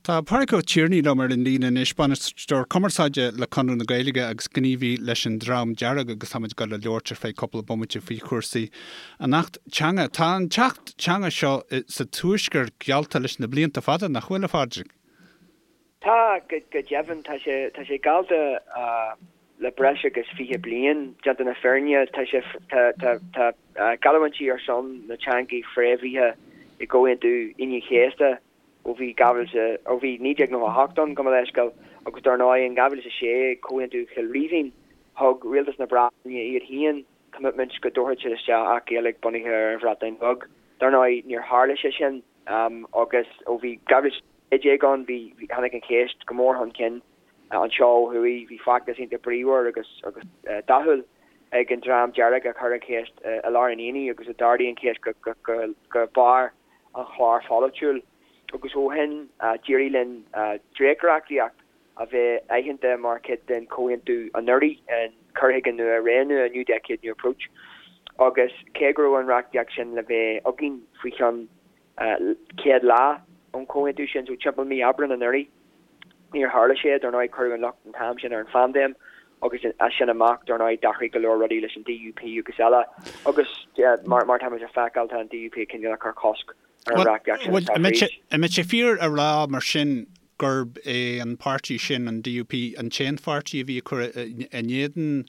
Tá Pádraig Ó Tiarnaigh liom ar an líne anois, Bainisteoir Cumarsáide le Conradh na Gaeilge agus gníomhaí leis an Dream Dearg agus táimid ag dul a labhairt ar feadh cúpla bomaite faoi chúrsaí an Acht Teanga. Tá an tAcht Teanga seo sa Tuaisceart geallta leis na blianta fada, nach bhfuil, a Phádraig? Tá, go deimhin. Tá sé, tá sé geallta le breis agus 20 bliain, déanta na fírinne. Tá sé, tá, tá, tá geallúintí ar son na teangaí fréamhaithe i gComhaontú Aoine an Chéasta ó bhí 2000, ó bhí 1998 ann, gabh mo leithscéal, agus dar ndóigh in 2006, Comhaontú Chill Rímhinn, thug Rialtas na Breataine iad féin commitment go dtabharfadh siad isteach Acht Gaeilge bunaithe ar an Bhreatain Bheag. Dar ndóigh níor tharla sé sin agus ó bhí 2016 ann bhí, tháinig an cheist go mór chun cinn anseo ó thuaidh, bhí feachtas iontach bríomhar agus agus dathúil ag an Dream Dearg a chuir an cheist i lár an aonaigh agus a d'ardaigh an cheist go go go barr an chláir pholaitiúil agus ó shin d'éirigh linn dréacht-reachtaíocht a bheith aitheanta mar chuid den chomhaontú anuraidh, an Cur Chuige Nua, Ré Nua, New Decade, New Approach, agus cé go raibh an reachtaíocht sin le bheith againn faoi cheann 100 lá ón chomhaontú sin, so timpeall mí Aibreáin anuraidh, níor tharla sé. Dar ndóigh cuireadh an locht an t-am sin ar an phaindéim agus as sin amach, dar ndóigh, d'athraigh go leor rudaí leis an DUP agus eile agus mar táimid a feiceáil, tá an DUP cineál ag cur cosc ar an reachtaíocht sin atá fríd. An mbeadh sé fíor a rá mar sin gurb é an páirtí sin, an DUP, an t-aon pháirtí a bhí ag cur in éadan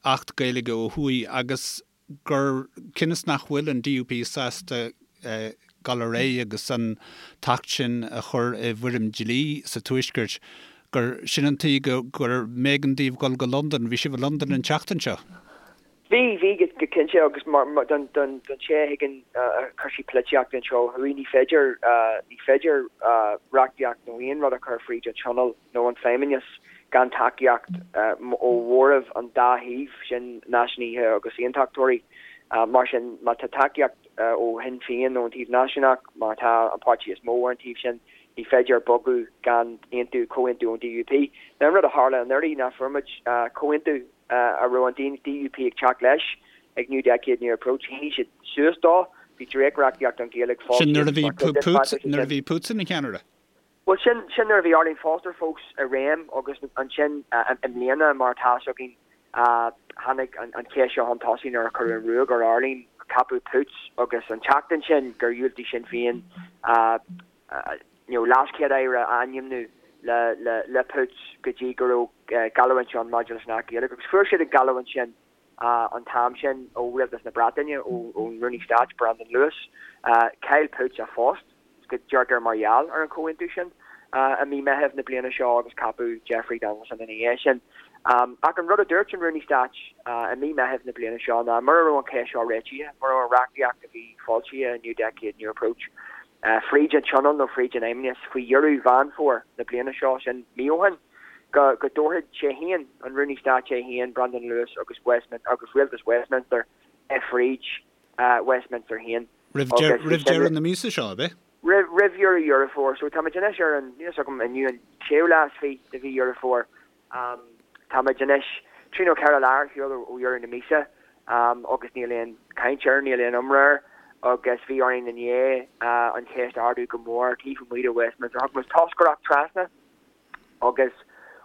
Acht Gaeilge ó thuaidh agus gur cionn is nach bhfuil an DUP sásta dul ar aghaidh agus an tAcht sin a chur i bhfoirm dlí sa Tuaisceart, gur sin an tuige gur mb'éigean daoibh dul go Londain. Bhí sibh i Londain an tseachtain seo. Bhí, bhí, go cinnte, agus mar, don, don, don té a thuigeann cúrsaí polaitíochta anseo ó thuaidh, ní féidir, ní féidir reachtaíocht nó aon rud a chur fríd an Tionól nó an Feidhmeannas gan tacaíocht ó mhóramh an dá thaobh, sin náisiúnaithe agus aontachtóirí. Mar sin, má tá tacaíocht ó Shinn Féin nó an taobh náisiúnach, mar atá an páirtí is mó ar an taobh sin, ní féidir bogadh gan aontú, comhaontú ón DUP. Now an rud a tharla anuraidh ná fuair muid comhaontú a raibh an DUP ag teacht leis ag New Decade, New Approach. Shínigh siad suas dó. Bhí dréacht-reachtaíocht don Ghaeilge Sin nuair a bhí Poots, nuair a bhí Poots ina cheannaire. Bhuel, sin, sin nuair a bhí Arlene Foster fós i réim agus ansin i mbliana, mar atá fhios againn, tháinig an cheist seo chun tosaigh nuair a cuireadh an ruaig ar Arlene, ceapadh Poots agus an tseachtain sin gur dhiúltaigh Sinn Féin you know leaschéad-aire a ainmniú le, le, le Poots go dtí go raibh geallúint ann maidir leis an Acht Gaeilge agus fuair siad an gheallúint sin. an t-am sin ó Rialtas na Breataine, ón Rúnaí Stáit, Brandon Lewis. Chaill Poots a phost, go deirtear mar gheall ar an chomhaontú sin, i mí Meithimh na bliana seo agus ceapadh Jeffrey Donaldson ina dhiaidh sin. Ach an rud a dúirt an Rúnaí Stáit i mí Meithimh na bliana seo ná mura raibh an cheist seo réitithe, mura raibh an reachtaíocht a bhí foilsithe i New Decade, New Approach fríd an Tionól nó fríd an Fheidhmeannas faoi dheireadh Mheán Fómhair na bliana seo, sin mí ó shin, go go dtabharfadh sé féin, an Rúnaí Stáit é féin, Brandon Lewis agus Westminster agus Rialtas Westminster é fríd Westminster féin. Roimh roimh deireadh na míosa seo, ab é? Roimh roimh dheireadh Dheireadh Fómhair. So táimid anois ar an, níl a fhios agam, inniu an séú lá is fiche de mhí Dheireadh Fómhair. Táimid anois trí nó ceithre lá ar shiúl ó dheireadh na míosa agus níl aon chaint air, níl aon iomrá air agus bhí orainn inné an cheist a ardú go mór taobh amuigh de Westminster. Thug muid toscaireacht trasna agus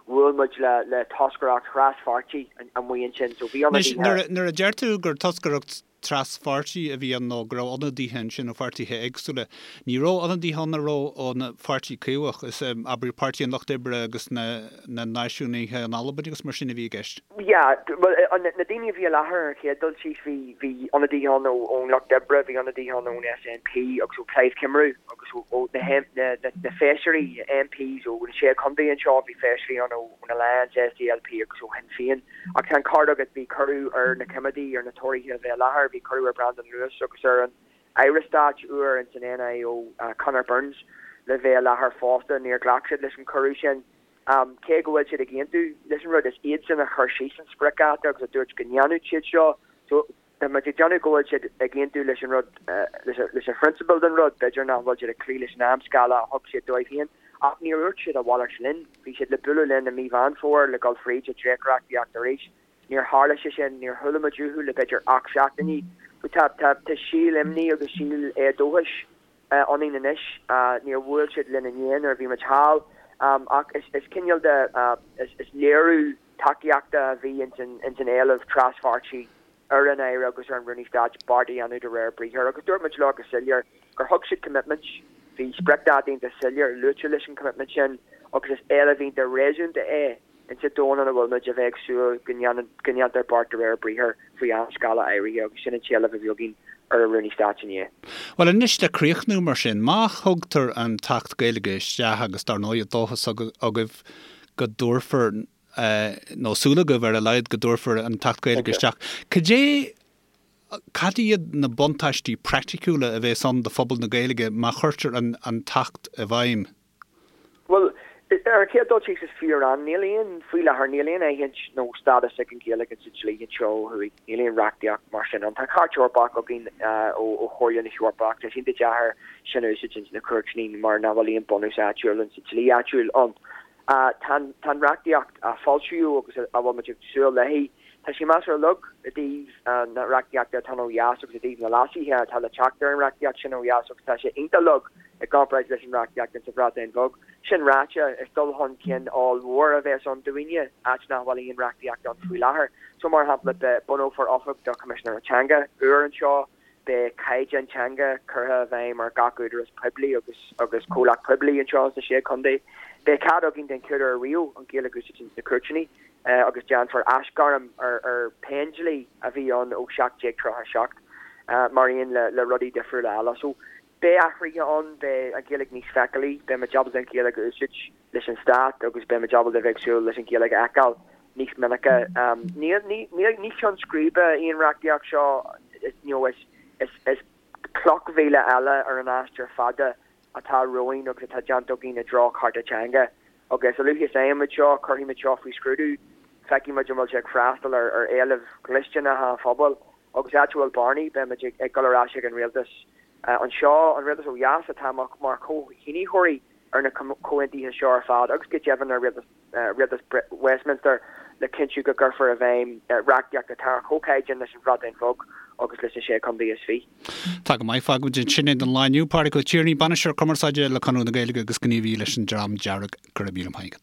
bhuail muid le toscaireacht thras-pháirtí amuigh ansin. So bhí ionadaithe. Anois, nuair a deir tú gur toscaireacht tras-pháirtí a bhí ann nó go raibh ionadaithe ansin ó pháirtithe éagsúla, ní raibh ionadaithe ann a raibh ón Pháirtí Caomhach, is abair Páirtí an Lucht Oibre agus na Náisiúnaithe in Albain agus mar sin a bhí i gceist. Yeah, bhuel, na daoine a bhí i láthair ar an chéad dul síos, bhí, bhí ionadaithe ann ón Lucht Oibre, bhí ionadaithe ann ón SNP agus ó Plaid Cymru agus ó na, na, na feisirí, MPs ó na sé chontae anseo, bhí feisirí ann ón Alliance, SDLP agus ó Shinn Féin. Ach tá an ceart agat, bhí cuireadh ar na coimeádaigh, ar na Tóraithe a bheith i láthair, bhí cuireadh ar Brandon Lewis agus ar an Aire Stáit úr ins an NIO, Conor Burns, le bheith i láthair fosta. Níor ghlac siad leis an cuireadh sin. Cé go bhfuil siad ag aontú leis an rud, is iadsan a chuir síos an spriocdháta agus a dúirt go ndéanfadh siad seo. So, tá muid ag déanamh go bhfuil siad ag aontú leis an rud, leis an phrionsabal den rud, b'fhéidir nach bhfuil siad ag cloí leis an amscála a thug siad dóibh féin. Ach níor dhúirt siad a mhalairt linn. Bhí siad le bualadh linn i mí Mheán Fómhair le dul fríd an dréachtreachtaíocht arís. Níor tharla sé sin, níor chuala muid uathu le b'fhéidir 8 seachtainí. So tá, tá, tá síol imní agus síol éadóchais. ionainn anois. Níor bhuail siad linn inné nuair a bhí muid thall ach is cineál de, is léiriú tacaíochta a bhí ins an éileamh traspháirtí ar an Aire agus ar an Rúnaí Stáit beart a dhéanamh de réir briathair agus dúirt muid leo go soiléir gur thug siad commitment, bhí spriocdháta iontach soiléir luaite leis an commitment sin agus is éileamh iontach réasúnta é insa domhan ina bhfuil muid a bheith ag súil go ndéantar beart de réir briathair faoi amscála áirithe agus sin an t-éileamh a bhí againn ar an Rúnaí Stáit inné. Bhuel anois le críochnú mar sin, má thugtar an tAcht Gaeilge isteach agus dar ndóigh dóchas agaibh go dtabharfar nó súil agaibh ar a laghad go dtabharfar an tAcht Gaeilge isteach. Cad é, cad iad na buntáistí praiticiúla a bhéas ann do phobal na Gaeilge má chuirtear an an tAcht i bhfeidhm? Bhuel, ar an chéad dul síos is fíor-an, níl aon, faoi láthair, níl aon aithint nó stádas ag an Ghaeilge sa dlí anseo ó thuaidh. Níl aon reachtaíocht mar sin ann. Tá Cairt Eorpach againn ó Chomhairle na hEorpa ach tá sé iontach deacair sin a úsáid ins na cúirteanna mar nach bhfuil aon bunús áitiúil ins an dlí áitiúil ann. Tá an reachtaíocht a foilsíodh agus a bhfuil muid ag súil léi, tá sí measartha lag i dtaobh na reachtaíochta atá ann ó dheas agus i dtaobh na leasuithe atá le teacht ar an reachtaíocht sin ó dheas agus tá sé iontach lag i gcomparáid leis an reachtaíocht insa Bhreatain Bheag. Sin ráite, is dul chun cinn ollmhór a bheas ann dúinne, áit nach bhfuil aon reachtaíocht ann faoi láthair. So, mar shampla, bunófar oifig do Choimisinéir Teanga úr anseo, Beidh caighdeán teanga curtha i bhfeidhm ar gach údarás poiblí agus agus comhlacht poiblí anseo sna Sé Chontae. Beidh cead againn den chéad uair ariamh an Ghaeilge a úsáid ins na cúirteanna agus déanfar aisghairm ar ar Phéindlí a bhí ann ó 1737 mar aon le le rudaí difriúla eile. So beidh athruithe ann, beidh an Ghaeilge níos feiceálaí, beidh muid ábalta an Ghaeilge a úsáid leis an stát agus beidh muid ábalta a bheith ag súil leis an Ghaeilge a fheiceáil níos minice. Ní ceann scríbe í an reachtaíocht seo, you know, is is cloch mhíle eile ar an aistear fada atá romhainn agus atá déanta againn i dtreo cearta teanga. Agus a luaithe is a fhaigheann muid seo, cuirfidh muid seo faoi scrúdú, feicfidh muid an bhfuil sé ag freastal ar ar éilimh dhlisteanacha an phobail agus áit a bhfuil bearnaí, beidh muid ag dul ar ais ag an rialtas anseo, an rialtas ó dheas atá mar chomhshínitheoirí ar na comhaontuithe seo ar fad agus go deimhin ar rialtas Westminster le cinntiú go gcuirfear i bhfeidhm reachtaíocht atá ar chomhchaighdeán leis an Bhreatain Bheag agus leis na Sé Chontae is Fiche. Tá go maith, fágfaimid ansin é don lá inniu. Pádraig Ó Tiarnaigh, Bainisteoir Cumarsáide le Conradh na Gaeilge agus gníomhaí leis an Dream Dearg, go raibh míle maith agat.